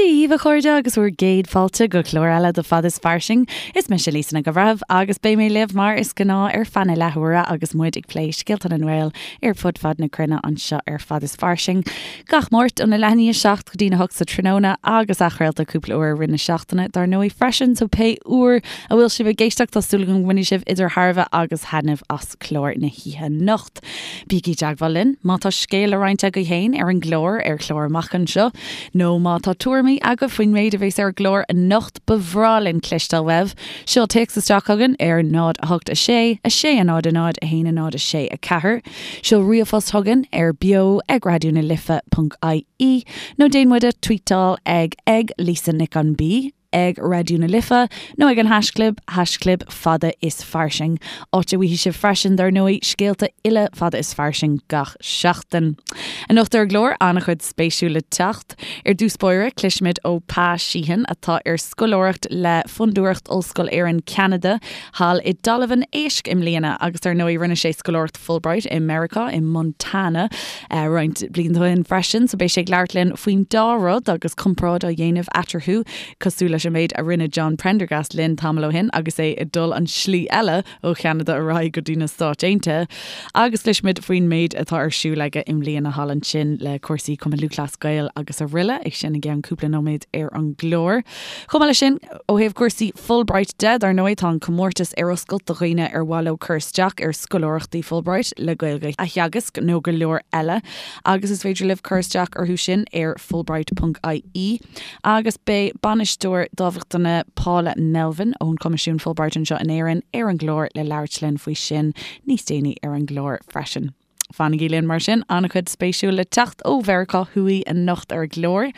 Dia dhaoibh a chairde agus bhur gcéad fáilte go clár eile de Fad is Fairsing. Is mise Lisa Nic an Bhreithimh agus beidh mé libh mar is gnáth ar feadh na leathuaire agus muid ag plé scéalta na nGael ar fud fad na cruinne anseo ar Fad is Fairsing. Gach Máirt óna leath i ndiaidh a 7 go dtína 8 sa tráthnóna agus athchraolta cúpla uair i rith na seachtaine dar ndóigh freisin so pé uair a bhfuil sibh ag éisteacht tá súil agam go mbainfidh sibh idir thairbhe agus thaitneamh as clár na hoíche anocht. Bígí i dteagmháil linn má tá scéal le roinnt agaibh féin ar an gclár, ar chlár amach anseo, nó má tá tuairimí agaibh faoin méid a bheas ar an gclár anocht, ba bhreá linn cloisteáil uaibh. Seol téacs isteach chugainn ar 0 8 6 6 0 0 1 0 6 4, seol ríomhphost chugainn ar beo ag raidió na life ponc ie, nó déan muid a tweetáil ag ag Lisa Nic an B. ag Raidió na Life nó ag an haischlib, haischlib Fada is Fairsing, áit a bhfaighidh sibh freisin, dar ndóigh, scéalta uile Fada is Fairsing gach seachtain. Anocht ar an gclár, an-chuid spéisiúil le teacht. Ar dtús báire, cloisfimid ó Pa Sheehan, atá ar scoláireacht le Fondúireacht Ollscoil Éireann Ceanada thall i dTalamh an Éisc i mbliana agus dar ndóigh rinne sé scoláireacht Fulbright i Meiriceá, i Montana, roinnt blianta ó shin freisin, so beidh sé ag labhairt linn faoin dá rud agus comparáid á dhéanamh eatarthu, cosúil leis an méid a rinne John Prendergast linn tamall ó shin agus é ag dul an slí eile ó Cheanada ar aghaidh go dtí na Stáit Aontaithe. Agus cloisfimid faoin méid atá ar siúl aige i mbliana thall ansin le cúrsaí Cumann Lúthchleas Gael agus araile, é sin i gceann cúpla nóiméad ar an gclár. Chomh maith leis sin, ó thaobh cúrsaí Fulbright de, dar ndóigh, tá an comórtas ar oscailt do dhaoine ar mhaith leo cur isteach ar scoláireachtaí Fulbright le Gaeilge a theagasc nó go leor eile agus is féidir libh cur isteach orthu sin ar fulbright.ie agus beidh Bainisteoir Dámhachtana Paula Melvin ón Choimisiún Fulbright anseo in Éirinn ar an gclár le labhairt linn faoi sin níos déanaí ar an gclár freisin. Fanaigí linn mar sin, an-chuid spéisiúil le teacht ó Mheiriceá Thuaidh anocht ar an gclár.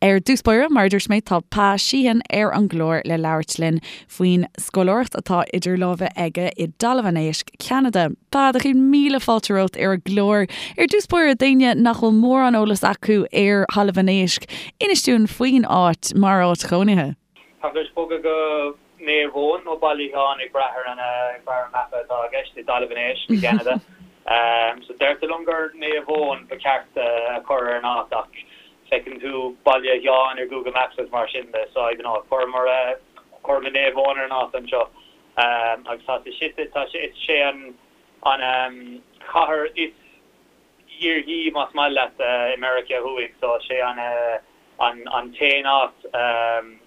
Ar dtús báire, mar a dúirt mé, tá Pa Sheehan ar an gclár le labhairt linn faoin scoláireacht atá idir lámha aige i dTalamh an Éisc, Ceanada. Pa, do chéad míle fáilte romhat ar an gclár. Ar dtús báire, d'éinne nach bhfuil mórán eolas acu ar Thalamh an Éisc, inis dúinn faoin áit mar áit chónaithe. Tá tar éis bogadh go Naomh Eoin nó Baile Sheáin ag brath ar an ag brath ar an mapa atá i gceist i dTalamh an Éisc i gCeanada. So deirtear liom gur Naomh Eoin ba cheart a chur ar an áit ach feiceann tú Baile Sheáin ar Google Maps agus mar sin de so I don't know chuireamar chuireamar Naomh Eoin ar an áit anseo. Agus tá sé suite tá sé is sé an an chathair is iarthaí más maith leat i Meiriceá Thuaidh so sé an an t-aon áit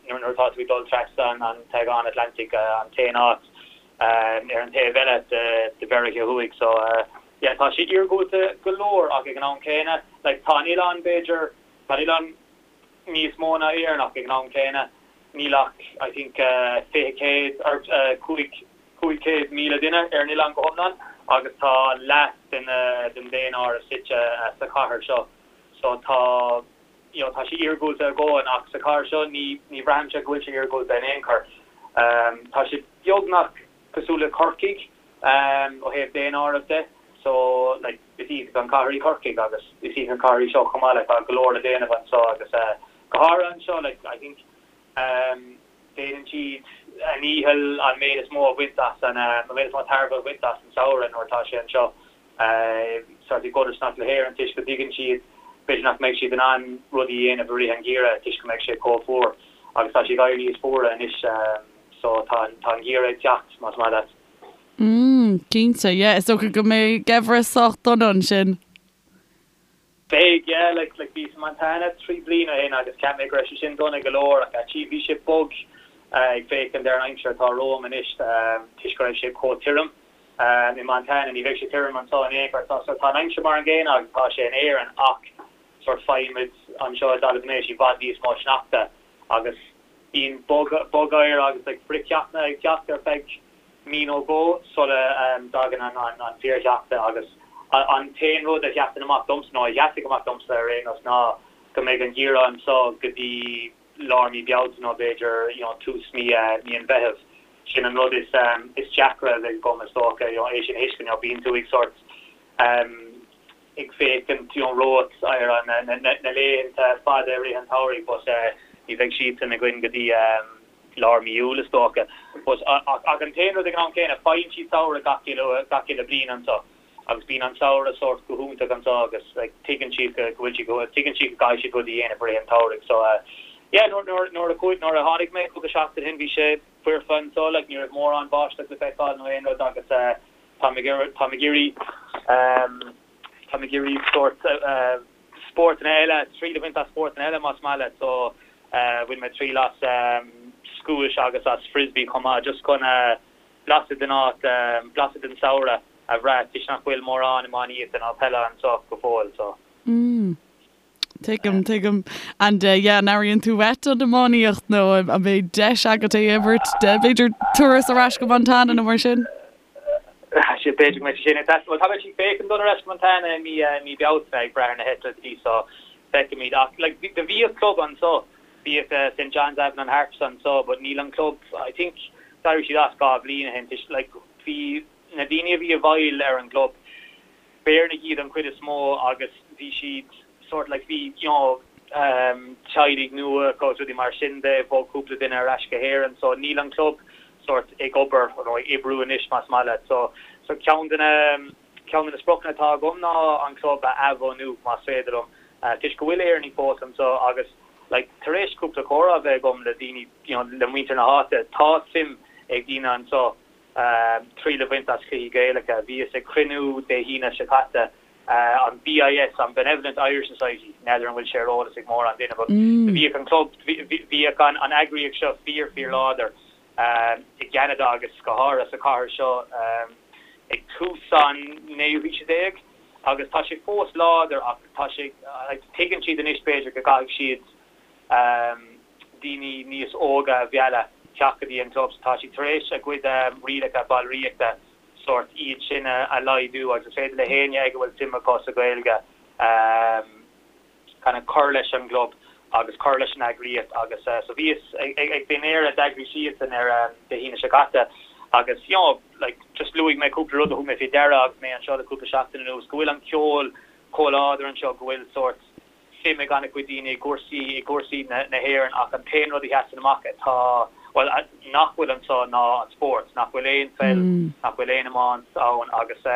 nuair atá tú ag dul trasna an t-Aigéan Atlantaigh an t-aon áit ar an taobh eile de Mheiriceá Thuaidh so yeah tá sé iargúlta go leor ach ag an am céanna like tá an oileán b'fhéidir tá an oileán níos mó ná Éirinn ach ag an am céanna níl ach I think 20 céad or 5 500,000 duine ar an oileán go hiomlán agus tá leath den den daonáireamh suite sa chathair seo so tá you know tá sé iargúlta a dhóthain ach sa chathair seo ní ní bhraithimse go bhfuil sé iargúlta in aon chor. Tá sé beagnach cosúil le Corcaigh ó thaobh daonáireamh de so like is iontach an cathair í Corcaigh agus is iontach an cathair í seo chomh maith like tá go leor le déanamh anseo agus go háirithe anseo like I think Déanann siad a ndícheall an méid is mó a bhaint as an, an méid is mó tairbhe a bhaint as an samhradh nuair atá sé anseo, sort i gcodarsnacht le hÉirinn toisc go dtuigeann siad b'fhéidir nach mbeidh siad in ann rudaí a dhéanamh i rith an gheimhridh toisc go mbeidh sé chomh fuar agus tá sé ag éirí níos fuaire anois so tá an, tá an geimhreadh ag teacht más maith leat. Mm, cinnte, yeah, is dócha go mbeidh geimhreadh sách dona ansin. Beidh, yeah, like, like bhíos i Montana 3 bliana ó shin agus cheap mé go raibh sé sin dona go leor ach actually bhí sé bog ag féachaint ar an aimsir atá romham anois toisc go raibh sé chomh tirim i Montana. Ní bheidh sé tirim anseo in aon chor. So tá an aimsir mar an gcéanna agus atá sé in Éirinn ach sort faighimid anseo i dTalamh an Éisc i bhfad níos mó sneachta agus bíonn bogoighear agus like frithcheathanna ag teacht ar feadh mí nó dhó sula dtagann an fíorshneachta agus an t-aon rud a sheasann amach domsa, nó a sheasfaidh amach domsa ar aon nós, ná go mbeidh an geimhreadh anseo go dtí lár mí Bealtaine nó b'fhéidir you know tús mí mí an Mheithimh. Sin an rud is is deacra a bheidh agam is dócha, you know é sin a thuiscint, you know bíonn tú ag sort ag féachaint you know romhat ar an na na laethanta fada i rith an tsamhraidh but ní bheidh siadsan againn go dtí lár mí Iúil is dócha. But ach an t-aon rud ag an am céanna, faigheann siad samhradh gach uile gach uile bliain anseo agus bíonn an samhradh sórt go hiontach anseo agus like tuigeann siad go go bhfuil siad go tuigeann siad go gcaithfidh siad rudaí a dhéanamh i rith an tsamhraidh so yeah. yeah nuair nuair nuair a chuaigh nuair a tháinig mé cúpla seachtain ó shin bhí sé foirfe anseo like ní raibh mórán báisteach le feiceáil nó aon rud agus eh táim ag iarraidh táim ag iarraidh ehm táim ag iarraidh sórt eh spórtanna eile triail a bhaint as spórtanna eile más maith leat so eh bhain mé triail as ehm scuais agus as frisbee chomh maith just chun eh blaiseadh den áit blaiseadh den samhradh a bhrath toisc nach bhfuil mórán iománaíochta ná peile anseo go fóill so. Mm. Tuigim, tuigim. And eh yeah, an airíonn tú uait an iománaíocht nó an mbeidh deis agat é a imirt de b'fhéidir turas ar ais go Montana nó mar sin? Sea, b'fhéidir go mbeidh sé sin ag teastáil. Bhuel, tá mé ag féachaint dul ar ais go Montana i mí, mí Bealtaine ag brath ar na heitiltí so feicfimid. Ach like do bhíodh club anseo Bhíodh St John's Avalon Harps anseo but níl an club, I think d'éirigh siad as 2 bhliain ó shin toisc like bhí na daoine a bhí i bhfeighil ar an gclub, b'Éireannaigh iad an chuid is mó agus bhí siad sort like bhí you know teaghlaigh nua acu agus rudaí mar sin de, bhog cúpla duine ar ais go hÉirinn so níl an club sort ag obair nó ag oibriú anois más maith leat so so ceann de na Ceann de na spriocanna atá agam ná an club a athbhunú, más féidir liom, toisc go bhfuil Éireannaigh fós anseo agus like tar éis cúpla comhrá a bheith agam le daoine, you know, le muintir na háite, tá suim ag daoine anseo triail a bhaint as cluichí Gaelacha. Bhíos ag cruinniú Dé hAoine seo caite, an BIS, an Benevolent Irish Society, n'fheadar an bhfuil sé ar eolas ag mórán duine but bhíodh an club, bhíodh an eagraíocht seo fíor fíor láidir i gCeanada agus go háirithe sa chathair seo ag tús an naoú haoise déag agus tá sé fós láidir ach tá sé, tuigeann siad anois b'fhéidir go gcaithfidh siad daoine níos óga a mhealladh teacht go dtí an club so tá siad tar éis a gcuid rialacha ballraíochta sórt iad sin a laghdú agus is féidir le héinne ag a bhfuil suim acu sa Ghaeilge kind of cur leis an gclub agus cur leis an eagraíocht agus so bhíos ag dinnéar a d'eagraigh siadsan ar Dé hAoine seo caite agus you know like just luaigh mé cúpla rud a thug mé faoi deara agus mé anseo le cúpla seachtain anuas, go bhfuil an ceol chomh láidir anseo, go bhfuil sórt suim ag an-chuid daoine i gcúrsaí i gcúrsaí na na hÉireann ach an t-aon rud a sheasann amach atá bhuel nach bhfuil anseo ná an spórt, nach bhfuil aon pheil, nach bhfuil aon iomáint ann agus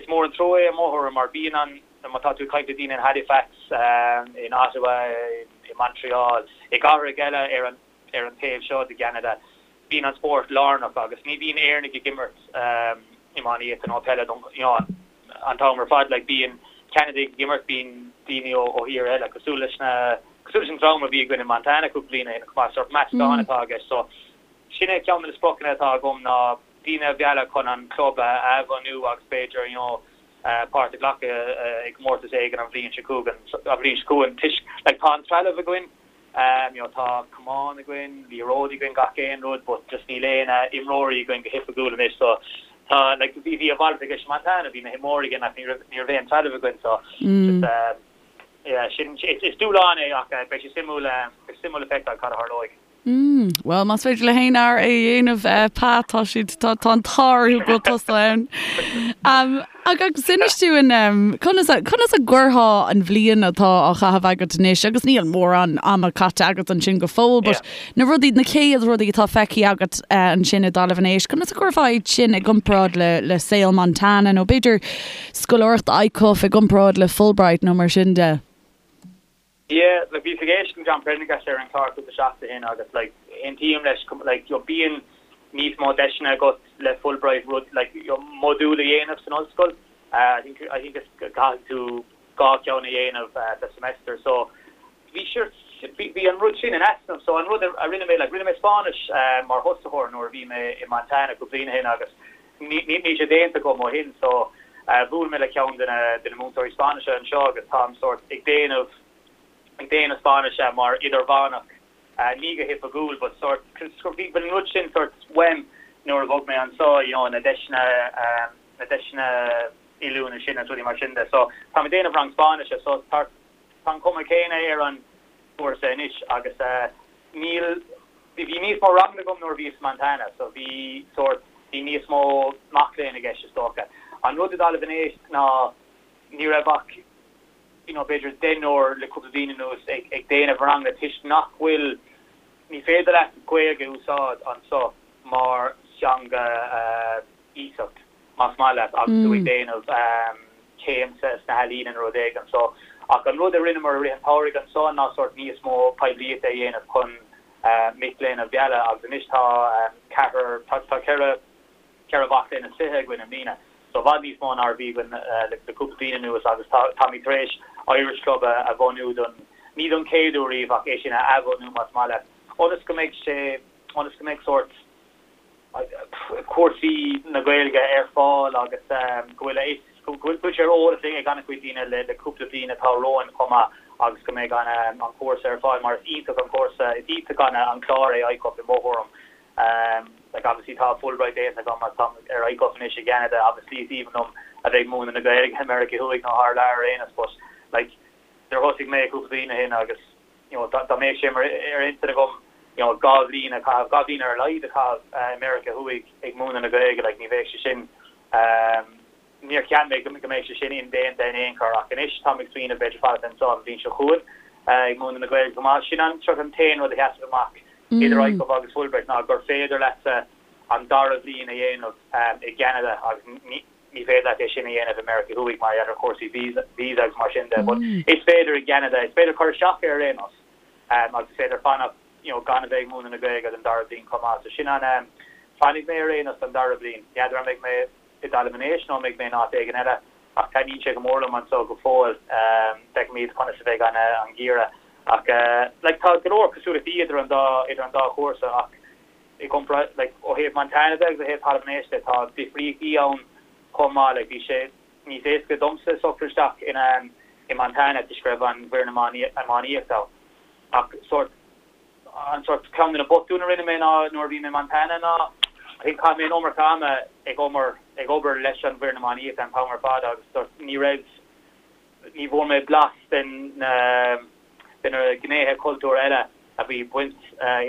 is mór an trua é i mo thuairim mar bíonn an Má tá tú ag caint le daoine in Halifax, in Ottawa, i Montreal, i gcathracha eile ar an ar an taobh seo de Cheanada, bíonn an spórt lárnach agus ní bhíonn Éireannaigh ag imirt iománaíochta nó peile don you know an t-am ar fad. Like bíonn Ceanadaigh ag imirt, bíonn daoine ó ó thíortha eile cosúil leis na cosúil leis an dream a bhí againn in Montana cúpla bliain ó shin chomh maith, sórt meascán atá i gceist. So sin é ceann de na spriocanna atá agam ná daoine a mhealladh chun an club a athbhunú agus b'fhéidir you know páirt a ghlacadh i gcomórtas éigin an bhliain seo chugainn, an bhliain seo chugainn toisc like tá an trealamh againn, you know tá camáin againn, liathróidí againn, gach aon rud but just níl aon imreoirí againn go hoifigiúil anois so tá like bhí bhí a mhalairt i gceist i Montana, bhí na himreoirí againn ach ní raibh ní raibh aon trealamh againn so just yeah sin is dúshlán é ach beidh sé suimiúil beidh sé suimiúil le feiceáil cad a tharlóidh. Mm, bhuel, más féidir le haon fhear é a dhéanamh, eh, Pat, tá siad, tá, tá an t-ádh orthu go bhfuil tusa ann. Um, agus inis dúinn, um, conas a, conas a gcuirfeá an bhliain atá á chaitheamh agat anois, agus níl mórán ama caite agat ansin go fóill, but yeah. na rudaí, na chéad rudaí atá feicthe agat uh, ansin i dTalamh an Éisc, conas a gcuirfeá iad sin i gcomparáid le, le saol Montana, nó b'fhéidir scoláireacht ICUF i gcomparáid le Fulbright nó mar sin de? Yeah, like bhíos ag éisteacht le John Prendergast ar an chlár cúpla seachtain ó shin agus like aontaím leis like you know bíonn níos mó deiseanna agat le Fulbright rud like you know modúl a dhéanamh san ollscoil. Uh, I think I think is caithfidh tú dhá cheann a dhéanamh uh, sa semester so bhí sure bhí bhí an rud sin in easnamh so an rud a rinne mé like rinne mé Spáinnis uh, mar thosaitheoir nuair a bhí mé i Montana cúpla bliain ó shin agus Níl sé déanta agam ó shin so bhuail mé le ceann de na de na múinteoirí Spáinnise anseo agus táim sórt ag déanamh ag déanamh Spáinnise mar idirmheánach, ní go hoifigiúil but sórt bhí an rud sin sórt uaim nuair a bhog mé anseo you know na deiseanna na deiseanna oiliúna sin agus rudaí mar sin de so táim ag déanamh rang Spáinnise so tá tá an cuma céanna ar an gcúrsa anois agus níl Bhí níos mó ranganna agam nuair a bhíos i Montana so bhí sórt, bhí níos mó mac léinn i gceist is dócha. An rud i dTalamh an Éisc ná ní raibh ach you know b'fhéidir deichniúr le cúpla bliain anuas ag ag déanamh ranganna toisc nach bhfuil, ní féidir leat Gaeilge a úsáid anso mar theanga iasacht más maith leat agus tú ag déanamh céim sna healaíona nó rud éigin. So. Ach an rud a rinneamar i rith an tsamhraidh anso ná sórt níos mó poiblíochta a dhéanamh chun mic léinn a mhealladh agus anois tá ceathrar, tá 4, 4 mhac léinn is 20 againn i mbliana, so i bhfad níos mó ná a bhí againn le cúpla bliain anuas agus tá, táimid tar éis Irish Club a bhunú don, ní don chéad uair riamh ach é sin a athbhunú más maith leat, ionas go mbeidh sé, ionas go mbeidh sórt cúrsaí na Gaeilge ar fáil agus go bhfuil a fhios, go bhfuil sé ar eolas ag an-chuid daoine le cúpla bliain atá romhainn chomh maith agus go mbeidh an cúrsa ar fáil mar is iontach an cúrsa, is iontach an clár é ICUF i mo thuairim. Like obviously tá Fulbright déanta agam agus táim ar ICUF anois i gCeanada, obviously is aoibhinn liom a bheith ag múineadh na Gaeilge i Meiriceá Thuaidh nó thar lear ar aon nós but like nuair a thosaigh mé cúpla bliain ó shin agus you know dá mbeadh sé mar ar intinn agam you know 2 bhliain a chaitheamh, 2 bhliain ar a laghad a chaitheamh i Meiriceá Thuaidh ag múineadh na Gaeilge like ní bheadh sé sin Níor cheap mé go mbeadh sé sin indéanta in aon chor ach anois táim ag smaoineamh b'fhéidir fanacht anseo an bhliain seo chugainn ag múineadh na Gaeilge chomh maith. Sin an sort an t-aon rud a sheasann amach idir ICUF agus Fulbright ná gur féidir leatsa an dara bhliain a dhéanamh i gCeanada agus ní féidir leat é sin a dhéanamh i Meiriceá Thuaidh mar gheall ar chúrsaí visa agus mar sin de. But is féidir i gCeanada, is féidir cur isteach air ar aon nós agus is féidir fanacht you know gan a bheith ag múineadh na Gaeilge don dara bliain chomh maith. So sin an, fanfaidh mé ar aon nós don dara bliain. N'fheadar an mbeidh mé i dTalamh an Éisc nó an mbeidh mé in áit éigin eile, ach taitníonn sé go mór liom anso go fóill. Feicfimid conas a bheidh an an geimhreadh. Ach like tá go leor cosúlachtaí idir an dá idir an dá chúrsa ach i gcomparáid like ó thaobh Montana de agus ó thaobh Talamh an Éisc de tá difríochtaí ann chomh maith. Like bhí sé níos éasca domsa socrú isteach in i Montana toisc go raibh an bhfoireann iománaíochta ann. Ach sórt An sórt, ceann de na botúin a rinne mé ná nuair a bhí mé i Montana ná I think chaith mé an iomarca ama ag obair ag obair leis an bhfoireann iománaíochta an t-am ar fad agus sórt ní raibh ní bhfuair mé blas den na de na gnéithe cultúir eile a bhí baint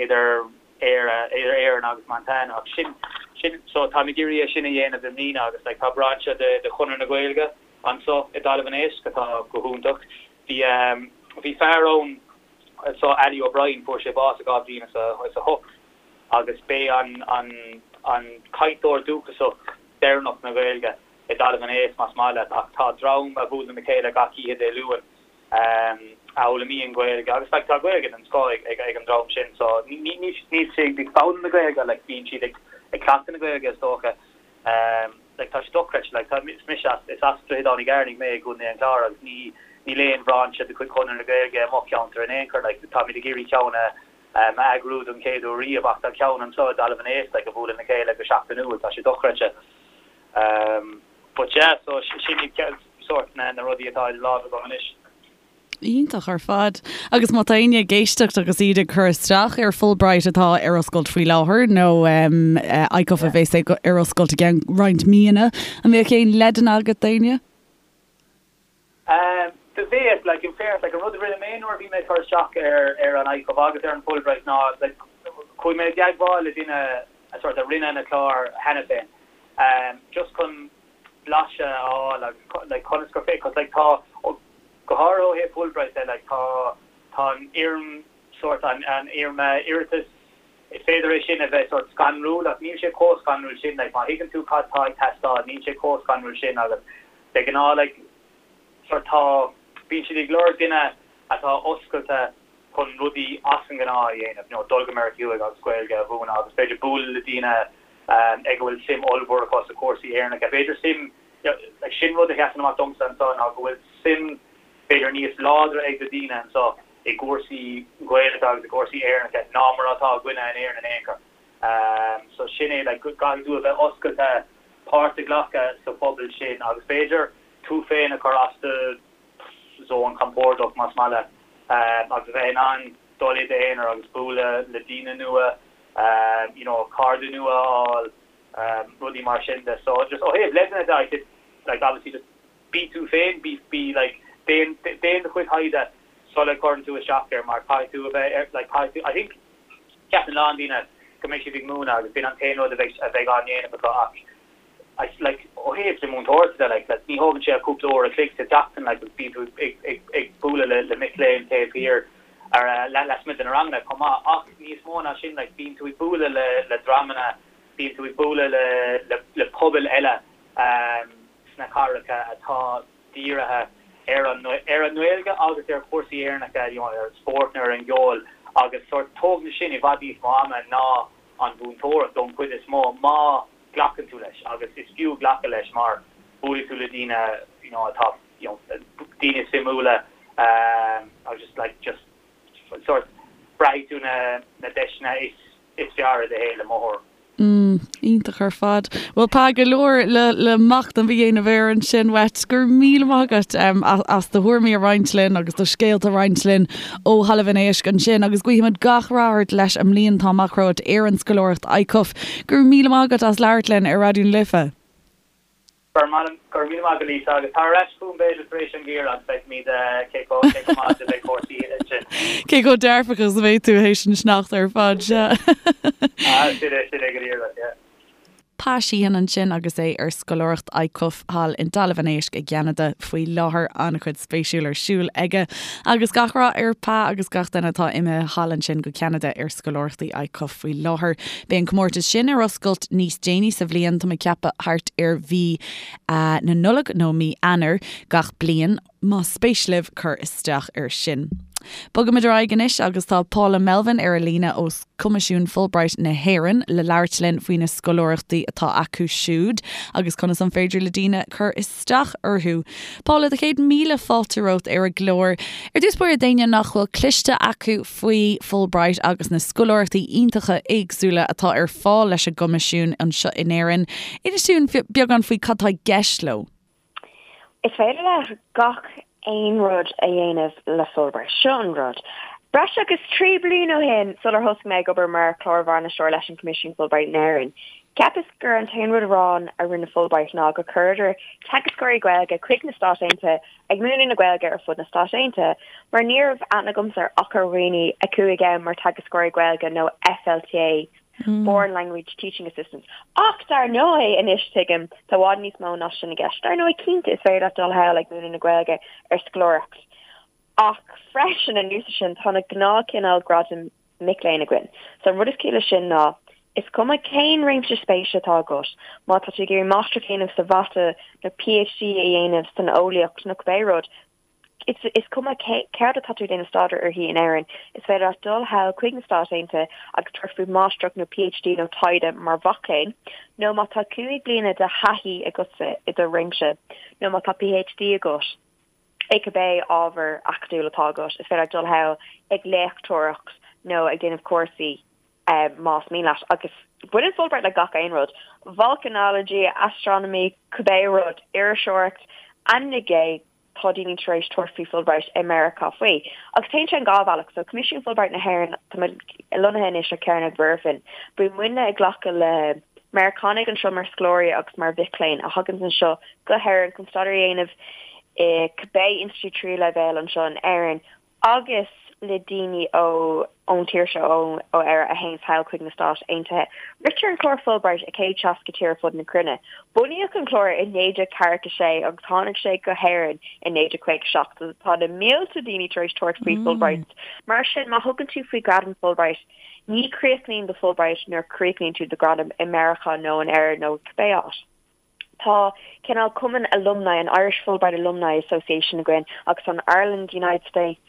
idir Éire idir Éirinn agus Montana ach sin sin so táim ag iarraidh é sin a dhéanamh i mbliana agus like tá brainse de de Chonradh na Gaeilge anso i dTalamh an Éisc atá go hiontach. Bhí bhí fear ann So Ali O'Brien, fuair sé bás i 2008 agus b'é an an cainteoir dúchasach deireanach na Gaeilge i dTalamh an Éisc, más maith leat, ach tá dream a bhuaileann le chéile gach oíche Dé Luain a fhoghlaimíonn Gaeilge agus like tá Gaeilge den scoth ag ag an dream sin so ní níl siad ag foghlaim na Gaeilge like bíonn siad ag ag cleachtadh na Gaeilge is dócha. Like tá sé dochreidte, like tá, is mise as, is as Droichead Átha na gCearnaigh mé i gContae an Chláir agus ní, níl aon bhrainse de chuid Chonradh na Gaeilge i mo cheantar in aon chor, like táimid ag iarraidh ceann a, a eagrú don chéad uair riamh ach tá ceann anseo i dTalamh an Éisc like a bhuaileann le chéile go seachtainiúil, tá sé dochreidte. But yeah, so sin iad sórt na, na rudaí atá idir lámha agam anois. Iontach ar fad. Agus má tá éinne ag éisteacht agus iad ag cur isteach ar Fulbright atá ar oscailt faoi láthair nó ICUF a bheas ar oscailt i gceann roinnt míonna, an mbeadh aon leideanna agat d'éinne? Do bheadh, like, in fairness, like, an rud a rinne mé nuair a bhí mé ag cur isteach ar ar an ICUF agus ar an Fulbright ná, like, chuaigh mé i dteagmháil le duine a sort a rinne na cláir cheana féin, just chun blaiseadh a fháil agus like conas gur féidir, cos like tá, go háirithe ó thaobh Fulbright de, like tá, tá an fhoirm sórt, an, an fhoirm iarratais, is féidir é sin a bheith sórt scanrúil ach níl sé chomh scanrúil sin, like má thuigeann tú cad tá ag teastáil níl sé chomh scanrúil sin agus de ghnáth like sórt tá, bíonn siad ag lorg duine atá oscailte chun rudaí as an ngnáth a dhéanamh, you know dul go Meiriceá Thuaidh agus Gaeilge a mhúineadh agus b'fhéidir bualadh le daoine ag a bhfuil suim ollmhór acu sa chúrsaí Éireannacha. B'fhéidir suim, like sin rud a sheasann amach domsa anseo ná go bhfuil suim b'fhéidir níos láidre ag na daoine anseo i gcúrsaí Gaeilge agus i gcúrsaí Éireannacha ná mar atá againne in Éirinn in aon chor. So sin é, like caithfidh tú a bheith oscailte páirt a ghlacadh sa phobal sin agus b'fhéidir tú féin a chur as do zón compordach más maith leat agus a bheith in ann dul i d'aonar agus bualadh le daoine nua, you know cairde nua a fháil, rudaí mar sin de. So just ó thaobh leideanna de, I said like obviously just bí tú féin, bí bí like déan déan do chuid taighde sula gcuireann tú isteach air mar caithfidh tú a bheith ar like caithfidh tú I think ceapann a lán daoine go mbeidh siad ag múineadh agus b'in an t-aon rud a bheidh a bheidh á ndéanamh acu ach I like ó thaobh na múinteoireachta de like like ní thógann sé ach cúpla uair a chloig sa tseachtain like agus bíonn tú ag ag ag bualadh le le mic léinn taobh thiar ar lasmuigh de na ranganna chomh maith ach níos mó ná sin like bíonn tú ag bualadh le le dreamanna bíonn tú ag bualadh le le le pobail eile sna cathracha atá dírithe. ar an ar an nGaeilge agus ar chúrsaí Éireannacha, you know, ar an spórt nó ar an gceol agus sórt tógann sin i bhfad níos mó ama ná an mhúinteoireacht don chuid is mó má ghlacann tú leis agus is fiú glacadh leis mar buailfidh tú le daoine you know atá you know daoine suimiúla agus just like just sórt braithfidh tú na na deiseanna is is fearr i do shaol i mo thuairim. Mm, iontach ar fad. Bhuel, tá go leor le, le machnamh a dhéanamh air ansin uait. Go raibh míle maith agat um, as do thuairimí a roinnt linn agus do scéalta a roinnt linn ó Thalamh an Éisc ansin agus guímid gach rath ort leis an mbliain atá amach romhat ar an scoláireacht ICUF. Go raibh míle maith agat as labhairt linn ar Raidió na Life. Go raibh míle maith agat Lisa agus tar ar ais chugam b'fhéidir tar éis an gheimhridh agus feicfimid cé chomh cé chomh maith is a bheidh cúrsaí ansin. Cé chomh dearfach is a bheidh tú théis an sneachta ar fad, sea. Ah, sin é, sin é go díreach, yeah. Pa Sheehan ansin agus é ar scoláireacht ICUF thall i dTalamh an Éisc i gCeanada faoi láthair. An-chuid spéisiúil ar siúl aige agus gach rath ar Pa agus gach duine atá imithe thall ansin go Ceanada ar scoláireachtaí ICUF faoi láthair. Beidh an comórtas sin ar oscailt níos déanaí sa bhliain, tá mé ag ceapadh thart ar mhí na Nollag nó mí Eanáir gach bliain, más spéis libh cur isteach air sin. Bogaimid ar aghaidh anois agus tá Paula Melvin ar an líne ó Choimisiún Fulbright na hÉireann le labhairt linn faoi na scoláireachtaí atá acu siúd agus conas an féidir le daoine cur isteach orthu. Paula, do chéad míle fáilte romhat ar an gclár. Ar dtús báire d'éinne nach bhfuil cloiste acu faoi Fulbright agus na scoláireachtaí iontacha éagsúla atá ar fáil leis an gCoimisiún anseo in Éirinn, inis dúinn beagán faoi cad tá i gceist leo. Is féidir leat gach aon rud a dhéanamh le Fulbright. Seo an rud. Breis agus 3 bliain ó shin, sular thosaigh mé ag obair mar chlár-bhainisteoir leis an Coimisiún Fulbright in Éirinn, cheapas gur an t-aon rud amháin a rinne Fulbright ná gur chuireadar teagascóirí Gaeilge chuig na Stáit Aontaithe ag múineadh na Gaeilge ar fud na Stát Aontaithe, mar ní raibh aithne agamsa ach ar dhaoine a chuaigh ann mar teagascóirí Gaeilge nó FLTA, Foreign Language Teaching Assistants. Ach dar ndóigh, anois tuigim, tá i bhfad níos mó ná sin i gceist. Dar ndóigh, cinnte, is féidir leat dul thall ag múineadh na Gaeilge ar scoláireacht. Ach freisin, anuas air sin, tá na gnáthchineál gradaim mic léinn againn. So an rud is ciall leis sin ná, is cuma cén réimse spéise atá agat, má tá tú ag iarraidh máistreacht a dhéanamh sa mhata nó PhD a dhéanamh san eolaíocht nó cibé rud, is is cuma céard atá tú ag déanamh staidéar uirthi in Éirinn, is féidir leat dul thall chuig na Stáit Aontaithe agus tabhairt faoi mháistreacht nó PhD nó taighde mar mhac léinn, nó má tá 5 bliana de thaithí agatsa i do réimse nó má tá PhD agat. i cibé ábhar acadúil atá agat, is féidir leat dul thall ag léachtóireacht nó ag déanamh cúrsaí más mian leat. Agus baineann Fulbright le gach aon rud, volcanology, astronomy, cibé rud, iriseoireacht, ainmnigh é, tá daoine tar éis tabhairt faoi Fulbright i Meiriceá faoi. Agus téann sé an dhá bhealach, so Coimisiún Fulbright na hÉireann, tá muid lonnaithe anois ar Chearnóg Mhuirfean, bíonn muidne ag glacadh le Meiriceánaigh anseo mar scoláirí agus mar mhic léinn a thaganns anseo go hÉirinn chun staidéar a dhéanamh i cibé institiúid tríú leibhéal anseo in Éirinn agus le daoine ó ón tír seo, ó ó Éire a théanns thall chuig na Stáit Aontaithe. Ritear an clár Fulbright i 160 tír ar fud na cruinne. Bunaíodh an clár i 1946 agus tháinig sé go hÉirinn i 1957 so tá na mílte daoine tar éis tabhairt faoi Fulbright. Mar sin má thugann tú faoi ghradam Fulbright, ní chríochnaíonn do Fulbright nuair a chríochnaíonn tú do ghradam i Meiriceá nó in Éirinn nó cibé áit. Tá cineál cumann alumni, an Irish Fulbright Alumni Association againn agus an Ireland United States,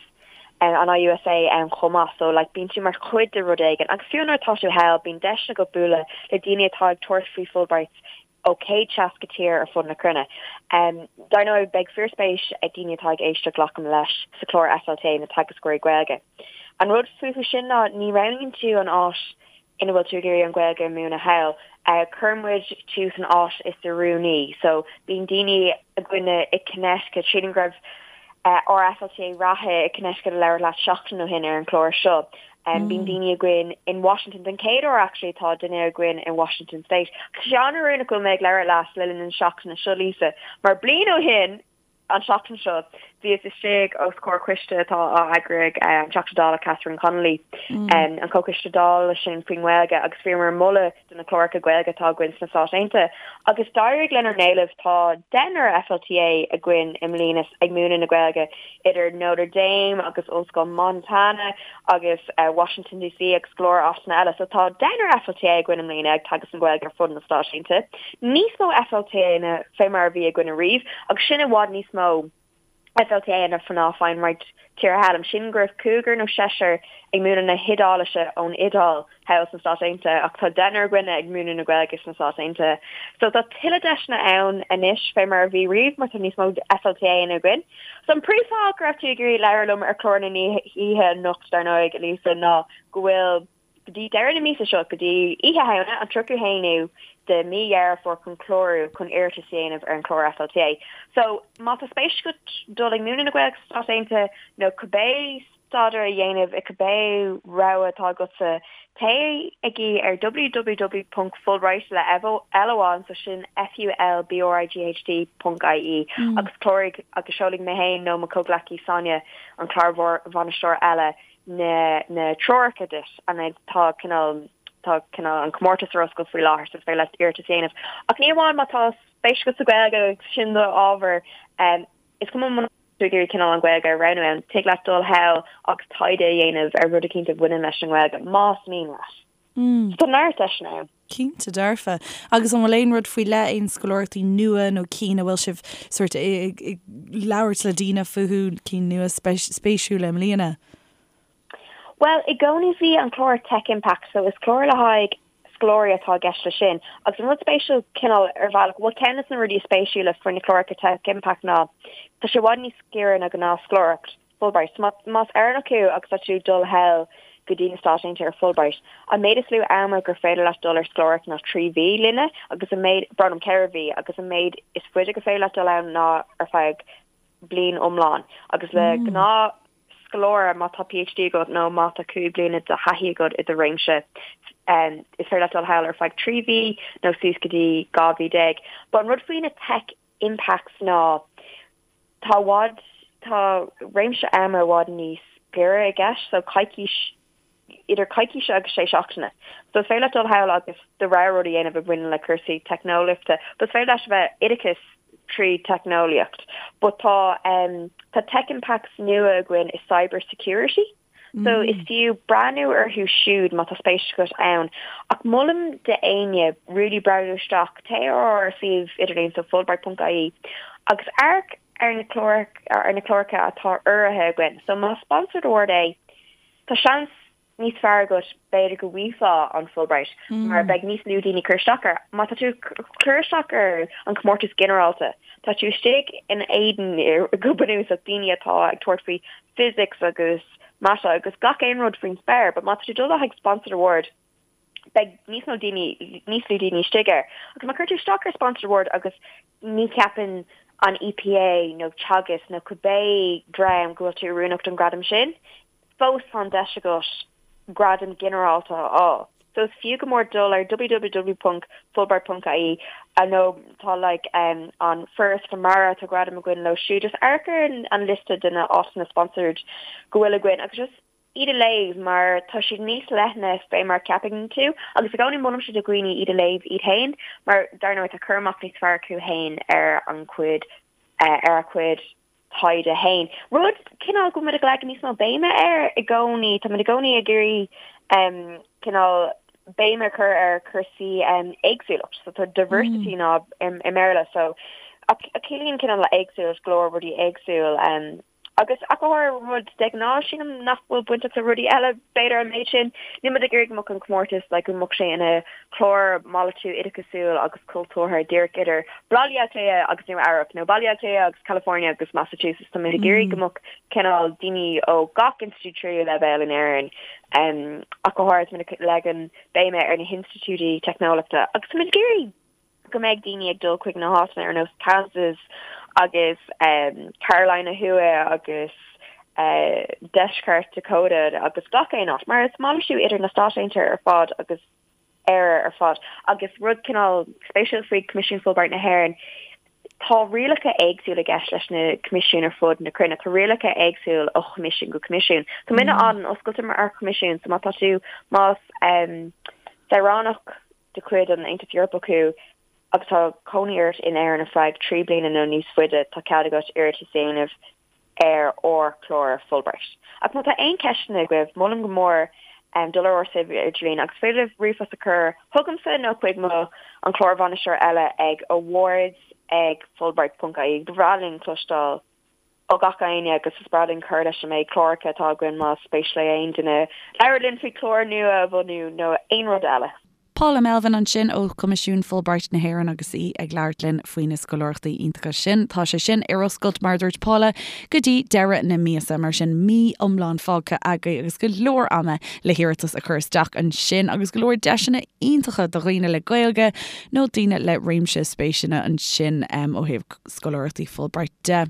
an IUSA ann chomh maith. So like bíonn tú mar chuid de rud éigin agus fiú nuair atá tú thall bíonn deiseanna agat bualadh le daoine atá ag tabhairt faoi Fulbrights ó 160 tír ar fud na cruinne. Dar ndóigh beidh fíorspéis ag daoine atá ag éisteacht glacaim leis sa chlár FLTA na teagascóirí Gaeilge. An rud fúthu sin ná ní roghnaíonn tú an áit ina bhfuil tú ag iarraidh an Ghaeilge a mhúineadh thall. Cuireann muid tú san áit is oiriúnaí. So bíonn daoine againne i Connecticut, sílim go raibh ár FLTA reatha i Connecticut ag labhairt leat seachtain ó shin ar an chlár seo. Bíonn daoine againn in Washington, den chéad uair actually tá duine againn in Washington State. Tá sé an-oiriúnach go bhfuil mé ag labhairt leat le linn na seachtaine seo Lisa, mar bliain ó shin, An tseachtain seo, bhíos istigh os comhair coiste atá á eagrú ag an Teachta Dála Catherine Connolly, an Comhchoiste Dála sin faoin nGaeilge, agus bhíomar ag moladh do na cláracha Gaeilge atá againn sna Stáit Aontaithe. Agus d'éirigh lenár n-éileamh, tá deichniúr FLTA againn i mbliana ag múineadh na Gaeilge idir Notre Dame agus Ollscoil Montana agus Washington DC agus go leor áiteanna eile. So tá deichniúr FLTA againn i mbliana ag teagasc na Gaeilge ar fud na Stáit Aontaithe. Níos mó FLTA ná fé mar a bhí againn ariamh agus sin i bhfad níos mó. FLTA ná faigheann roinnt tíortha eile. Sílim go raibh cúigear nó seisear ag múineadh na hIodáilise ón Iodáil thall sna Stáit Aontaithe ach tá deichniúr againne ag múineadh na Gaeilge sna Stáit Aontaithe. So tá tuilleadh deiseanna ann anois fé mar a bhí riamh mar tá níos mó FLTA-anna againn. So an príomhfháth go raibh tú ag iarraidh labhairt liom ar chlár na hoíche anocht dar ndóigh, Lisa, ná go bhfuil go dtí deireadh na míosa seo, go dtí Oíche Shamhna, an 31ú de mí Dheireadh Fómhair chun clárú chun iarratas a dhéanamh ar an chlár FLTA. So, má tá spéis agat dul ag múineadh na Gaeilge sna Stáit Aontaithe nó cibé staidéar a dhéanamh i cibé rogha atá agatsa, téigí ar www.fulbright le L amháin, so sin F-U-L-B-R-I-G-H-T ponc I-E agus cláraigh agus seolfaidh mé féin nó mo chomhghleacaí Sonia, an clár-bhainisteoir eile, na na treoracha duit and tá cineál tá cineál an comórtas ar oscailt faoi láthair so is féidir leat iarratas a dhéanamh. Ach ní amháin má tá spéis agat sa Ghaeilge agus sin do ábhar um, is cuma muna tú ag iarraidh cineál an Ghaeilge a roghnú ann, tig leat dul thall agus taighde a dhéanamh ar rud eicínt a bhaineann leis an nGaeilge, más mian leat. Mm. Tá neart deiseanna ann. Cinnte dearfa. Agus an bhfuil aon rud faoi leith, aon scoláireachtaí nua nó cinn a bhfuil sibh sórt ag labhairt le daoine fúthu, cinn nua spéisiúla i mbliana? Bhuel, i gcónaí bhí an clár Tech Impact, so is clár le haghaidh scoláirí atá i gceist leis sin. Agus an rud spéisiúil cineál ar bhealach, bhuel ceann de na rudaí is spéisiúla faoi na cláracha Tech Impact ná tá sé i bhfad níos giorra ná gnáthscoláireacht. Fulbright. Más Éireannach thú agus tá tú ag dul thall go dtí na Stáit Aontaithe ar Fulbright, an méid is lú ama gur féidir leat dul ar scoláireacht ná 3 mhí linne agus an méid, brón orm, 4 mhí, agus an méid is faide gur féidir leat dul ann ná ar feadh bliain iomlán. Agus le gnáth scoláire, má tá PhD agat nó má tá 5 bliana de thaithí agat i do réimse, is féidir leat dul thall ar feadh 3 mhí nó suas go dtí 12 mhí. But an rud faoi na Tech Impacts ná, Tá i bhfad, tá réimse ama i bhfad níos giorra i gceist, so coicís, idir coicís agus sé seachtaine. So is féidir leat dul thall agus do rogha rud a dhéanamh a bhaineann le cúrsaí teicneolaíochta, but is féidir leis a bheith oideachas trí teicneolaíocht. But tá, tá Tech Impacts nua againn i cyber security. So is fiú breathnú orthu siúd má tá spéis agat ann. Ach molaim d'éinne really breathnú isteach, téigh ar ár suíomh idirlín so fulbright.ie agus amharc ar na clár ar na cláracha atá urraithe againn. So más sponsored award é, tá seans níos fearr agat b'fhéidir go bhfaighfeá an Fulbright mar beidh níos lú daoine ag cur isteach air. Má tá tú ag cur isteach ar an chomórtas ginearálta, tá tú istigh in éadan go bunúsach daoine atá ag tabhairt faoi physics agus mata agus gach aon rud faoin spéir, but má tá tú ag dul le haghaidh sponsored award, beidh níos mó daoine, níos lú daoine istigh air. Agus má chuir tú isteach ar sponsored award agus ní cheapann an EPA nó Teagasc nó cibé dream go bhfuil tú oiriúnach don ghradam sin, fós tá an deis agat gradam ginearálta a fháil. So is fiú go mór dul ar www.fulbright.ie nó tá like um, an Foras Mara tá gradam againn leo siúd. Just amharc ar an liosta de na áiteanna sponsored go bhfuil againn agus just iad a léamh mar tá siad níos leithne fé mar ceapann tú agus i gcónaí molaimse do dhaoine iad a léamh iad féin mar dar ndóigh tá cur amach níos fearr acu féin ar an chuid uh, ar a chuid taighde féin. Rud cineál go bhfuil muid ag leagan níos mó béime air i gcónaí, tá muid i gcónaí ag iarraidh cineál béim a chur ar chúrsaí éagsúlacht, so tá diversity ná i mBéarla, so ach ciallaíonn cineál éagsúlacht go leor rudaí éagsúil. Agus ach go háirithe rud de ghnáth sílim nach bhfuil bainteach le rudaí eile b'fhéidir an méid sin. Níl muid ag iarraidh go mbeadh an comórtas like go mbeadh sé ina clár malartú oideachasúil agus cultúrtha díreach idir Baile Átha Cliath agus Nua Eabhrac nó Baile Átha Cliath agus California agus Massachusetts. Tá muid ag iarraidh go mbeadh cineál daoine ó gach institiúid tríú leibhéal in Éirinn ach go háirithe tá muid ag leagan béime ar na hinstitiúidí teicneolaíochta agus tá muid ag iarraidh go mbeidh daoine ag dul chuig na háiteanna ar nós Kansas agus Carolina Thuaidh agus Deisceart Dakota agus gach aon áit, mar is malartú idir na Stáit Aontaithe ar fad agus Éire ar fad. Agus rud cineál spéisiúil faoi Choimisiún Fulbright na hÉireann, tá rialacha éagsúla i gceist leis na coimisiúin ar fud na cruinne. Tá rialacha éagsúil ó choimisiún go coimisiún. Tá muidne an-oscailte mar choimisiún, so má tá tú, más saoránach de chuid an Aontais Eorpaigh thú agus tá cónaí ort in Éirinn ar feadh 3 bliana nó níos faide, tá cead agat iarratas a dhéanamh ar ár chlár Fulbright. Ach má tá aon cheisteanna agaibh, molaim go mór dul ar ár suíomh idirlín agus féidir libh ríomhphost a chur chugamsa nó chuig mo an clár-bhainisteoir eile ag awards ag fulbright.ie. Ba bhreá linn cloisteáil. Ó gach éinne agus is breá linn cur leis an méid cláracha atá againn más spéis le aon duine labhairt linn faoi chlár nua a bhunú nó aon rud eile. Paula Melvin ansin ó Choimisiún Fulbright na hÉireann agus í ag labhairt linn faoi na scoláireachtaí iontacha sin. Tá sé sin ar oscailt, mar a dúirt Paula, go dtí deireadh na míosa, mar sin mí iomlán fágtha agaibh agus go leor ama le hiarratas a chur isteach ansin agus go leor deiseanna iontacha do dhaoine le Gaeilge nó daoine le réimse spéiseanna ansin ó thaobh scoláireachtaí Fulbright de.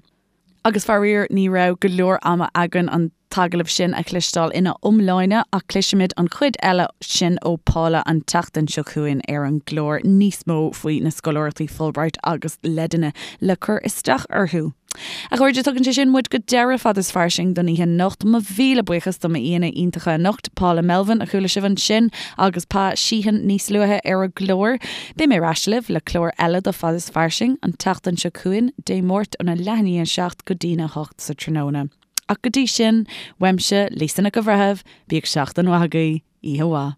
Agus faraor ní raibh go leor ama againn an t-agallamh sin a chloisteáil ina iomláine ach cloisfimid an chuid eile sin ó Paula an tseachtain seo chugainn ar an gclár, níos mó faoi na scoláireachtaí Fulbright agus leideanna le cur isteach orthu. A chairde, tugann sé sin muid go deireadh Fad is Fairsing don oíche anocht. Mo mhíle buíochas do m'aíonna iontacha anocht, Paula Melvin, a chuala sibh ansin, agus Pa Sheehan níos luaithe ar an gclár. Beidh mé ar ais libh le clár eile de Fad is Fairsing an tseachtain seo chugainn, Dé Máirt óna leath i ndiaidh a 7 go dtína 8 sa tráthnóna. Ach go dtí sin, uaimse, Lisa Nic an Bhreithimh, bíodh seachtain mhaith agaibh, oíche mhaith.